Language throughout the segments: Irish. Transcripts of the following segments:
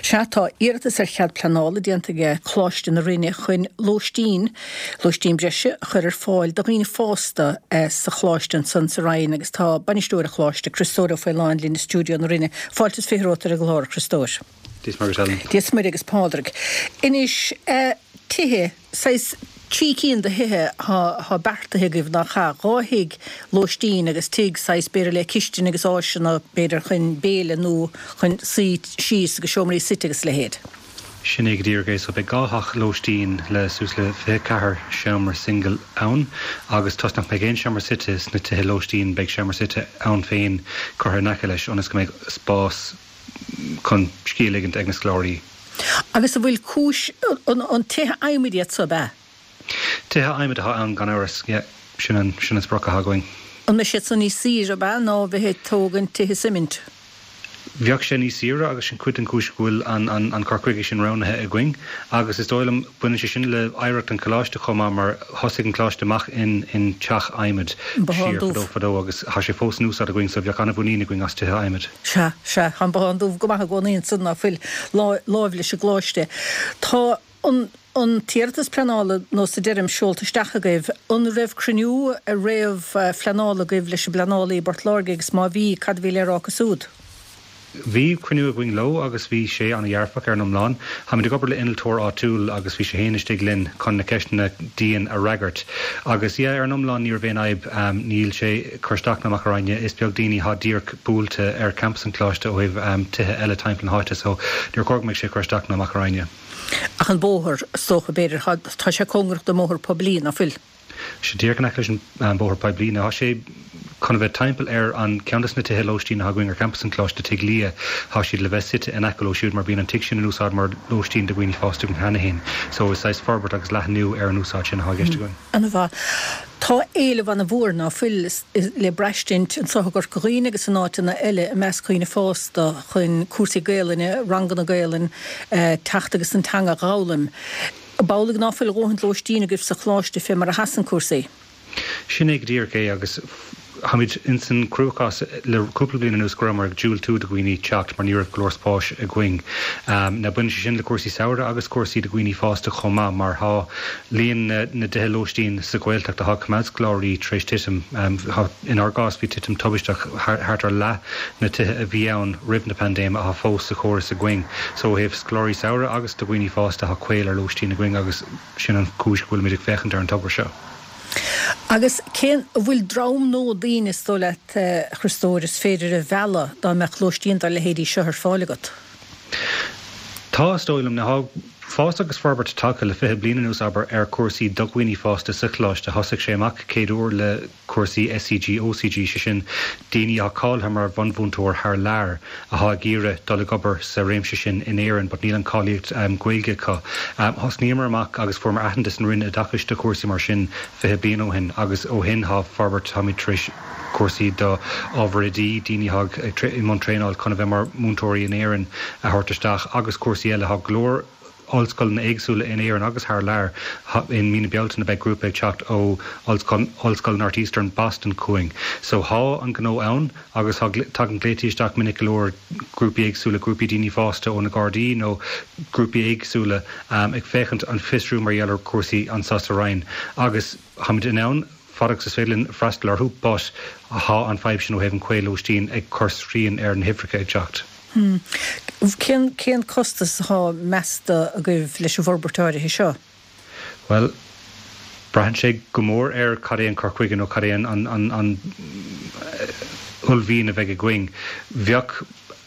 Sea, tá iarratas ar chead pleanála déanta aige Coláiste na Rinne chun lóistín, lóistín breise a chur ar fáil do dhaoine fásta sa choláiste ansan sa Rinn agus tá bainisteoir an choláiste, Criostóir Ó Faoláin linn i stiúideo na Rinne. Fáilte is 20 romhat ar an gclár, a Chriostóir. Dia is Muire duit, Helen. Dia is Muire agus Pádraig. Anois, tithe, saghas trí cinn de thithe atá beartaithe agaibh, nach ea? Dhá thigh lóistín agus tigh saghas b'fhéidir le cistin agus áiseanna b'fhéidir chun béile nó chun suí síos agus seomraí suite agus a leithéid. Sin é go díreach é. So beidh dhá theach lóistín le suas le 24 seomra singil ann agus toisc nach mbeidh aon seomra suite sna tithe lóistín beidh seomra suite ann féin curtha in aice leis ionas go mbeidh spás chun scíth a ligint ag na scoláirí. Agus an bhfuil cúis, an tithe adhmaid iad so, ab ea? Tithe adhmaid atá ann gan amhras, yeah. Sin an, sin an sprioc atá againn. An mbeidh siad san níos saoire, ab ea, ná a bheith ag tógaint tithe suimint? Bheadh sé níos saoire agus sin cuid den chúis go bhfuil an, an, an cur chuige sin roghnaithe againn. Agus is dóigh liom, baineann sé sin le hoidhreacht an choláiste chomh maith mar thosaigh an coláiste amach in, in teach adhmaid An Bothán siar fadó Dubh. fadó agus tá sé fós in úsáid againn so bheadh an-mhuinín againn as tithe adhmaid. Sea, sea, tá an Bothán Dubh go maith i gcónaí ansan, ná fuil, láimh leis an gcoláiste. Tá an, an t-iarratas pleanála, nós a deirim, seolta isteach agaibh. An raibh cruinniú réamh-phleanála agaibh leis an bpleanálaí i bPort Láirge agus má bhí, cad a bhí le rá acu siúd? Bhí cruinniú againn leo agus bhí sé an-dhearfach ar an iomlán. Táimid ag obair le innealtóir áitiúil agus bhí sé féin istigh linn chun na ceisteanna dian a fhreagairt. Agus yeah, ar an iomlán ní raibh aon fhadhb. Níl sé ag cur isteach ná amach orainne. Is beag daoine atá díreach buailte ar campas an choláiste ó thaobh tithe eile timpeall na háite so níor chóir go mbeadh sé ag cur isteach ná amach orainne. Ach an bóthar, is dócha, b'fhéidir, tá sé cóngarach don mbóthar poiblí, ná fuil? sé díreach in aice leis an bóthar poiblí. Now tá sé chun a bheith timpeall ar an ceann de na tithe lóistín atá againn ar champas an Choláiste, Tigh Lia. Tá siad le bheith suite in aice leo siúd mar bíonn an tigh sin in úsáid mar lóistín do dhaoine fásta againn cheana féin. So is saghas forbairt agus leathnú ar an úsáid sin atá i gceist againn. Ana-mhaith. Tá éileamh ana-mhór, ná fuil, le braistint anseo i gCorca Dhuibhne agus in áiteanna eile i measc dhaoine fásta chun cúrsaí Gaelainne, ranganna Gaelainne, teacht agus an teanga a dh'fhoghlaim. Ab amhlaidh ná fuil a dhóthaint lóistín agaibh sa choláiste fé mar a sheasann cúrsaí? Sin é go díreach é agus táimid ins an cruachás le cúpla bliain anuas go rabhamar ag diúltú do dhaoine teacht mar ní raibh go leor spáis againn. Now baineann sé sin le cúrsaí samhraidh agus cúrsaí do dhaoine fásta chomh maith mar tá líon na dtithe lóistín sa Ghaeltacht atá ag coimeád scoláirí tar éis titim. Inár gcás bhí titim tubaisteach, thart ar leath na tithe a bhí ann roimh na paindéime atá fós sa chóras againn. So ó thaobh scoláirí samhraidh agus do dhaoine fásta tá caol ar lóistín againn agus sin an chúis go bhfuilimid ag féachaint ar an togra seo. Agus cén, an bhfuil dream nó daoine is dóigh leat, a Chriostóir, is féidir a mhealladh dá mbeadh lóistín dá leithéidí seo ar fáil agat? Tá, is dóigh liom. Now tá fás agus forbairt tagtha le 20 bliain anuas, abair, ar chúrsaí do dhaoine fásta sa choláiste. Thosaigh sé amach céad uair le cúrsaí SCG, OCG, sé sin daoine atá cáilithe mar bhunmhúinteoir thar lear atá ag iarraidh dul ag obair sa réimse sin in Éirinn but níl an cáilíocht Gaeilge acu. Thosnaíomar amach agus fuaireamar aitheantas an Roinn Oideachais do chúrsaí mar sin 20 bliain ó shin agus ó shin tá forbairt, táimid tar éis cúrsaí do ábhar oidí, daoine atá i mbun traenáil chun a bheith mar mhúinteoirí in Éirinn a thabhairt isteach agus cúrsaí eile. Tá go leor ollscoileanna éagsúla in Éirinn agus thar lear. In mí na Bealtaine beidh grúpa ag teacht ó Ollscoil Northeastern Boston chugainn. So thá an gnó ann agus thá, tagann glaotaí isteach minic go leor, grúpaí éagsúla, grúpaí daoine fásta ó na Gardaí nó grúpaí éagsúla ag féachaint, ag fiosrú mar gheall ar chúrsaí anseo sa Rinn agus tháimid in ann fad agus is féidir linn freastal orthu but thá an fadhb sin ó thaobh an caol lóistín ag cur srian ar na huimhreacha ag teacht. Cén, cén costas atá measta agaibh leis an bhforbairt áirithe seo? Bhuel, braitheann sé go mór ar cad é an cur chuige nó cad é an, an, an, an uaillmhian a bheidh againn. Bheadh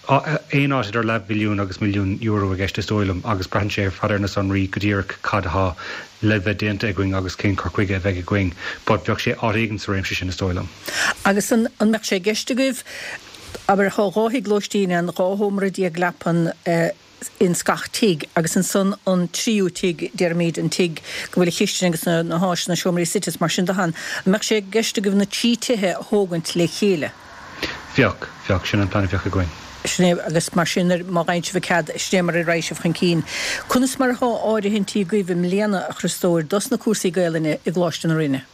aon áit idir leathmhilliún agus milliún euro i gceist is dóigh liom agus braitheann sé ar fad ar na sonraí go díreach cad atá le bheith déanta againn agus cén cur chuige a bheidh againn. But bheadh sé áit éigin sa réimse sin is dóigh liom. Agus an, an mbeadh sé i gceist agaibh Abair, thá 12 thigh lóistín ann, 12 shómra leapan ins gach tigh, agus ansan an tríú tigh, déarfaimíd, an tigh go bhfuil an chistin agus na háiseanna, seomraí suite is mar sin de ann. An mbeadh sé i gceist agaibh na trí tithe a thógaint le chéile? Bheadh, bheadh. Sin an plean a bheadh againn. Sin é, agus mar sin, má fhaigheann sibh an cead, sin é mar a raghaidh sibh chun cinn. Conas mar athá áirithintí agaibh i mbliana, a Chriostóir, dos na cúrsaí Gaelainne i gColáiste na Rinne?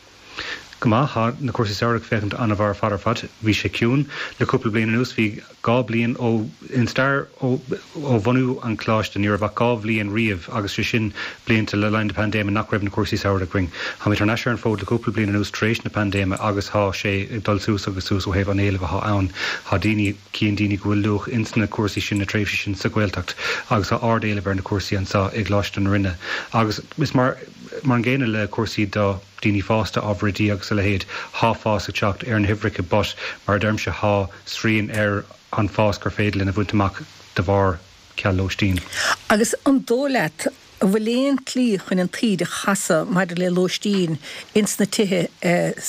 Go maith, thá na cúrsaí samhraidh ag féachaint an-mhaith ar fad ar fad. Bhí sé ciúin le cúpla bliain anuas, bhí 2 bliain ó, in stair ó, ó bhunú an Choláiste, ní raibh ach 2 bhliain riamh agus sé sin blianta le linn na paindéime nach raibh na cúrsaí samhraidh againn. Tháimid thar n-ais ar an bhfód le cúpla bliain anuas tar éis na paindéime agus thá sé ag dul suas agus suas ó thaobh an éilimh athá ann. Thá daoine, cíonn daoine go bhfuil luach ins na cúrsaí sin, na tréimhsí sin sa Ghaeltacht agus thá ard-éileamh ar na cúrsaí anso i gColáiste na Rinne agus is mar, mar an gcéanna le cúrsaí do. daoine fásta, ábhair oidí agus a leithéid, thá fás ag teacht ar na huimhreacha but mar a deirimse thá srian ar an fás gur féidir linn a bhaint amach de bharr ceal lóistín. Agus an dóigh leat an bhfuil aon tslí chun an taoide a chasadh maidir le lóistín ins na tithe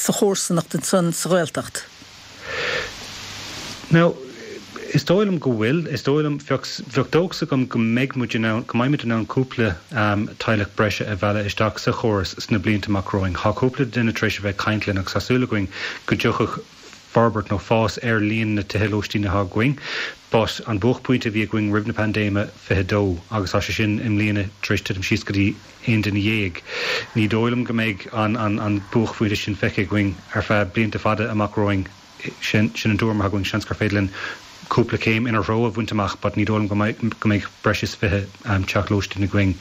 sa chomharsanacht ansan sa Ghaeltacht? Now, is dóigh liom go bhfuil. Is dóigh liom, bheadh, bheadh dóchas agam go mbeidh muid in ann, go mbeimid in ann cúpla teaghlach breise a mhealladh isteach sa chóras sna blianta amach romhainn. Tá cúpla duine tar éis a bheith ag caint linn agus tá súil againn go dtiocfadh forbairt nó fás ar líon na tithe lóistín atá againn. But an buaicphointe a bhí againn roimh na paindéime, 22, agus tá sé sin i mbliana tar éis titim síos go dtí 11 duine. Ní dóigh liom go mbeidh an buaicphointe sin feicthe againn ar feadh blianta fada amach romhainn. Sin an tuairim atá againn. Seans gur féidir linn cúpla céim ina threo a bhaint amach but ní dóigh liom go mbeidh breis is 20 teach lóistín againn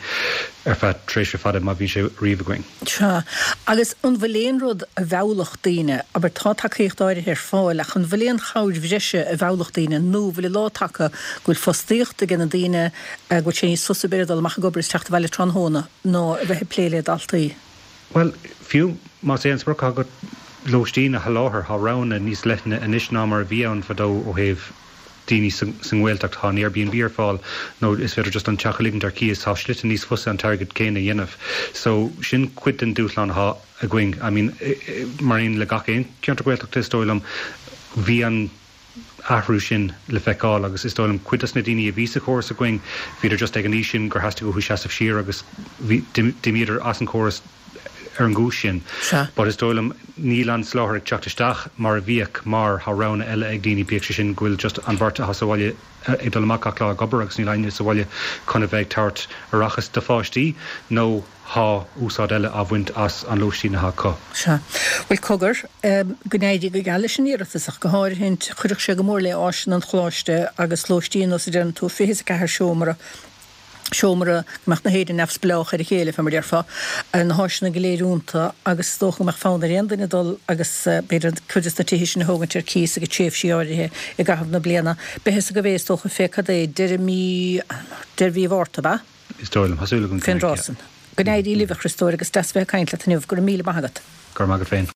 ar feadh tréimhse fada, má bhíonn sé riamh againn. Sea. Agus an bhfuil aon rud a mheallfadh daoine, abair tá tacaíocht áirithe ar fáil ach an bhfuil aon chabhair bhreise a mheallfadh daoine nó an bhfuil an lá tagtha go bhfuil fostaíocht ag na daoine, go bhfuil sé níos fusa b'fhéidir dul amach ag obair is teacht abhaile tráthnóna ná a bheith ag plé le daltaí. Bhuel, fiú más é an sprioc atá agat lóistín a sholáthar, tá roghanna níos leithne anois ná mar a bhí ann fadó ó thaobh daoine sa nGaeltacht. Tá an Airbnb ar fáil nó is féidir just an teach a ligint ar cíos. Tá slite níos fusa an t-airgead céanna a dhéanamh. So, sin cuid den dúshlán atá againn. I mean, mar aon le gach aon cheantar Gaeltachta is dóigh liom, bhí an. athrú sin le feiceáil agus is dóigh liom cuid dos na daoine a bhí sa chóras againn, bhíodar just ag an aois sin gur theastaigh uathu seasamh siar agus bhí, d'imíodar as an chóras ar an gcúis sin. Sea. But is dóigh liom níl an soláthar ag teacht isteach mar a bhíodh mar tá roghanna eile ag daoine, bíodh sé sin go bhfuil just an bheirt atá sa bhaile ag dul amach gach lá ag obair agus níl éinne sa bhaile chun a bheith ag tabhairt aireachas do pháistí nó Thá úsáid eile á bhaint as an lóistín atá acu. Sea. Bhuel, cogar, go n-éirí go geal leis an iarratas, ach go háirithint, chuirfeadh sé go mór le áiseanna an Choláiste agus lóistín, nós a deireann tú, 24 seomra, seomra, go mbeadh na héinne neamhspleách ar a chéile, fé mar a déarfá, na háiseanna go léir iontu agus is dócha go mbeadh fonn ar aon duine dul agus b'fhéidir cuid des na tithe sin a thógaint ar cíos ag tréimhsí áirithe i gcaitheamh na bliana. Beidh fhios agaibh é, is dócha, fé cad é, deireadh mí, deireadh mhí Mhárta, ab ea? Is dóigh liom. Tá súil agam go mbeidh, yeah. Fén dtráth san. Go n-éirí libh, a Chriostóir, agus deas bheith ag caint leat inniu. Go raibh míle maith agat. Go raibh maith agat féin.